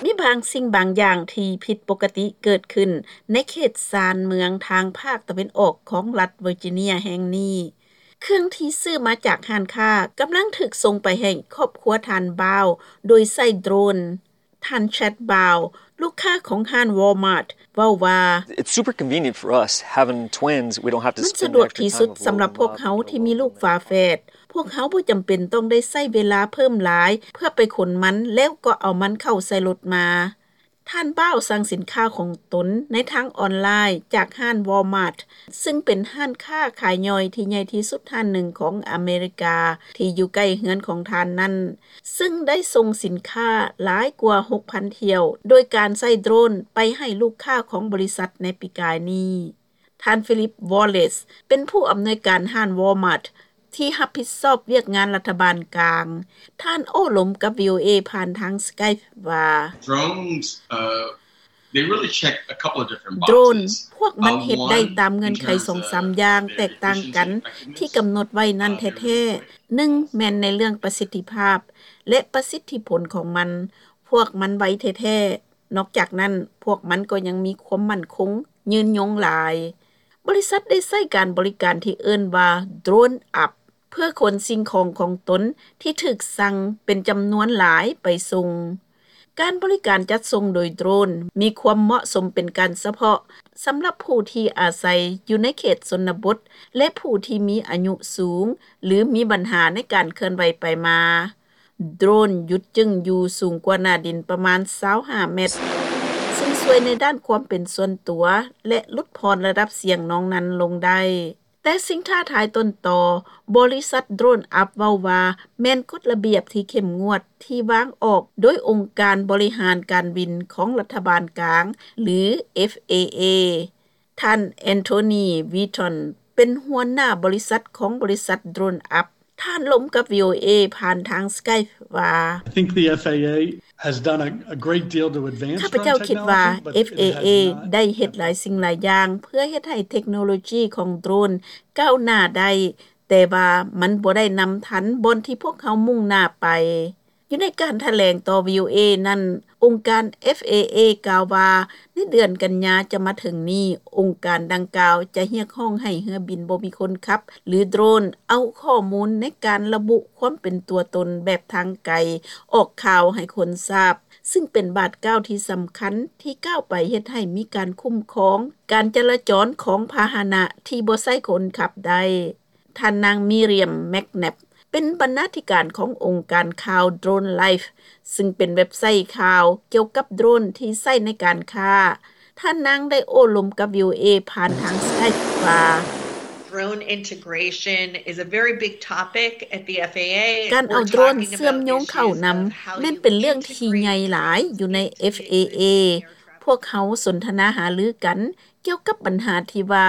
ມີບາງສິ່ງບາງຢ່າງທີ່ຜິດປົກກະຕິເກີດຂຶ້ນໃນເຂດຊານເມືອງທາງພາກຕາເວັນອອກຂອງລັດເວີຈິເນຍແຫ່ງນີ້. ເຄື່ອງທີ່ຊື້ມາຈາກຮ້ານຄ້າກຳລັງຖືກສົ່ງໄປໃຫ້ຄອບຄົວທ່ານ Bao ໂດຍໃຊ້ໂດຣນ. ທ່ານ Chad Bao ລູກຄ້າຂອງຮ້ານ Walmart ເວົ້າວ່າ It's super convenient for us having twins. We don't have to ມັນສະດວກທີ່ສຸດສຳລັບພວກເຮົາທີ່ມີລູກຝາແຝດ. ພວກເຮົາບໍ່ຈຳເປັນຕ້ອງໄດ້ໃຊ້ເວລາເພີ່ມຫຼາຍເພື່ອໄປຂົນມັນ ແລ້ວກໍເອົາມັນເຂົ້າໃສ່ລົດມາ. ທ່ານ Bao ສັ່ງສິນຄ້າຂອງຕົນໃນທາງອອນລາຍຈາກຮ້ານ Walmart ຊຶ່ງເປັນຮ້ານຄ້າຂາຍຍ່ອຍທີ່ໃຫຍ່ທີ່ສຸດຮ້ານໜຶ່ງຂອງອາເມລິກາ ທີ່ຢູ່ໃກ້ເຮືອນຂອງທ່ານນັ້ນ, ຊຶ່ງໄດ້ສົ່ງສິນຄ້າຫຼາຍກວ່າ ຫົກພັນ ຖ້ຽວ ໂດຍການໃຊ້ໂດຣນໄປໃຫ້ລູກຄ້າຂອງບໍລິສັດໃນປີກາຍນີ້. ທ່ານ Philip Wallace ເປັນຜູ້ອຳນວຍການຮ້ານ Walmart ທີ່ຮັບຜິດຊອບວຽກງານລັດຖະບານກາງ. ທ່ານໂອ້ລົມກັບ VOA ຜ່ານທາງ Skype ວ່າ Drones, uh, they really check a couple of different boxes. ໂດຣນ ພວກມັນເຮັດໄດ້ຕາມເງື່ອນໄຂສອງສາມຢ່າງແຕກຕ່າງກັນທີ່ກຳນົດໄວ້ນັ້ນແທ້ໆ. ໜຶ່ງ ແມ່ນໃນເລື່ອງປະສິດທິພາບ ແລະ ປະສິດທິຜົນຂອງມັນ. ພວກມັນໄວແທ້ໆ. ນອກຈາກນັ້ນ, ພວກມັນກໍຍັງມີຄວາມໝັ້ນຄົງຍືນຍົງຫຼາຍ. ບໍລິສັດໄດ້ໃຊ້ການບໍລິການທີ່ເອີ້ນວ່າ Drone Up ເພື່ອຂົນສິ່ງຂອງຂອງຕົນທີ່ຖືກສັ່ງເປັນຈຳນວນຫຼາຍໄປສົ່ງ. ການບໍລິການຈັດສົ່ງໂດຍໂດຣນມີຄວາມເໝາະສົມເປັນການສະເພາະສຳລັບຜູ້ທີ່ອາໄສຢູ່ໃນເຂດຊົນນະບົດ ແລະ ຜູ້ທີ່ມີອາຍຸສູງ ຫຼື ມີບັນຫາໃນການເຄື່ອນໄຫວໄປມາ. ໂດຣນຢຸດຈຶ່ງຢູ່ສູງກວ່າໜ້າດິນປະມານຊາວຫ້າແມັດ, ຊຶ່ງຊ່ວຍໃນດ້ານຄວາມເປັນສ່ວນຕົວ ແລະ ຫຼຸດຜ່ອນລະດັບສຽງນອງນັ້ນລົງໄດ້. ແຕ່ສິ່ງທ້າທາຍຕົ້ນຕໍ, ບໍລິສັດ Drone Up ເວົ້າວ່າ ແມ່ນກົດລະບຽບທີ່ເຂັ້ມງວດທີ່ວາງອອກໂດຍອົງການບໍລິຫານການບິນຂອງລັດຖະບານກາງ ຫຼື FAA. ທ່ານ Anthony Wheaton ເປັນຫົວໜ້າບໍລິສັດຂອງບໍລິສັດ Drone Up. ທ່ານລົມກັບ VOA ຜ່ານທາງ Skype ວ່າ I think the FAA has done a, a great deal to advance drone technology, but it has not ຂ້າພະເຈົ້າຄິດວ່າ FAA ໄດ້ເຮັດຫຼາຍສິ່ງຫຼາຍຢ່າງເພື່ອເຮັດໃຫ້ເທັກໂນໂລຈີຂອງໂດຣນກ້າວໜ້າໄດ້, ແຕ່ວ່າມັນບໍ່ໄດ້ນຳທັນບ່ອນທີ່ພວກເຮົາມຸ່ງໜ້າໄປ. ຢູ່ໃນການຖະແຫຼງຕໍ່ VOA ນັ້ນ, ອົງການ FAA ກ່າວວ່າ ໃນເດືອນກັນຍາຈະມາເຖິງນີ້, ອົງການດັ່ງກ່າວຈະຮຽກຮ້ອງໃຫ້ເຮືອບິນບໍ່ມີຄົນຂັບ ຫຼື ໂດຣນ ເອົາຂໍ້ມູນໃນການລະບຸຄວາມເປັນຕົວຕົນແບບທາງໄກອອກຂ່າວໃຫ້ຄົນຊາບ, ຊຶ່ງເປັນບາດກ້າວທີ່ສຳຄັນທີ່ກ້າວໄປເຮັດໃຫ້ມີການຄຸ້ມຄອງການຈະລາຈອນຂອງພາຫະນະທີ່ບໍ່ໃຊ້ຄົນຂັບໄດ້. ທ່ານນາງ Miriam McNabb ເປັນບັນນາທິການຂອງອົງການຂ່າວ Drone Life, ຊຶ່ງເປັນເວັບໄຊຂ່າວກ່ຽວກັບໂດຣນທີ່ໃຊ້ໃນການຄ້າ. ທ່ານນາງໄດ້ໂອ້ລົມກັບ VOA ຜ່ານທາງ Skype ວ່າ Drone integration is a very big topic at the FAA. ການເອົາໂດຣນເຊື່ອມໂຍງເຂົ້ານຳ ແມ່ນເປັນເລື່ອງທີ່ໃຫຍ່ຫຼາຍຢູ່ໃນ FAA. ພວກເຮົາສົນທະນາຫາລືກັນ ກ່ຽວກັບບັນຫາທີ່ວ່າ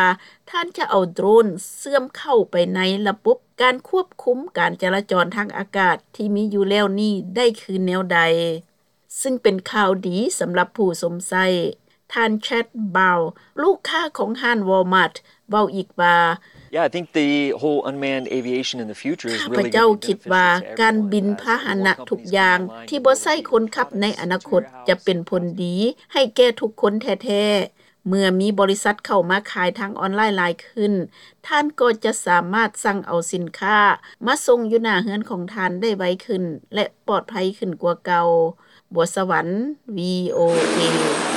ທ່ານຈະເອົາໂດຣນເຊື່ອມເຂົ້າໄປໃນລະບົບການຄວບຄຸມການຈະລາຈອນທາງອາກາດທີ່ມີຢູ່ແລ້ວນີ້ໄດ້ຄືແນວໃດ, ຊຶ່ງເປັນຂ່າວດີສຳລັບຜູ້ຊົມໃຊ້. ທ່ານ Chad Bow ລູກຄ້າຂອງຮ້ານ Walmart ເວົ້າອີກວ່າ Yeah, I think the whole unmanned aviation in the future is really gonna be beneficial to everyone. ຂ້າພະເຈົ້າຄິດວ່າການບິນພາຫະນະທຸກຢ່າງທີ່ບໍ່ໃຊ້ຄົນຂັບໃນອະນາຄົດຈະເປັນຜົນດີໃຫ້ແກ່ທຸກຄົນແທ້ໆ. ເມື່ອມີບໍລິສັດເຂົ້າມາຂາຍທາງອອນລາຍຫຼາຍຂຶ້ນ, ທ່ານກໍຈະສາມາດສັ່ງເອົາສິນຄ້າມາສົ່ງຢູ່ໜ້າເຮືອນຂອງທ່ານໄດ້ໄວຂຶ້ນ ແລະ ປອດໄພຂຶ້ນກວ່າເກົ່າ. ບົວສະຫວັນ VOA.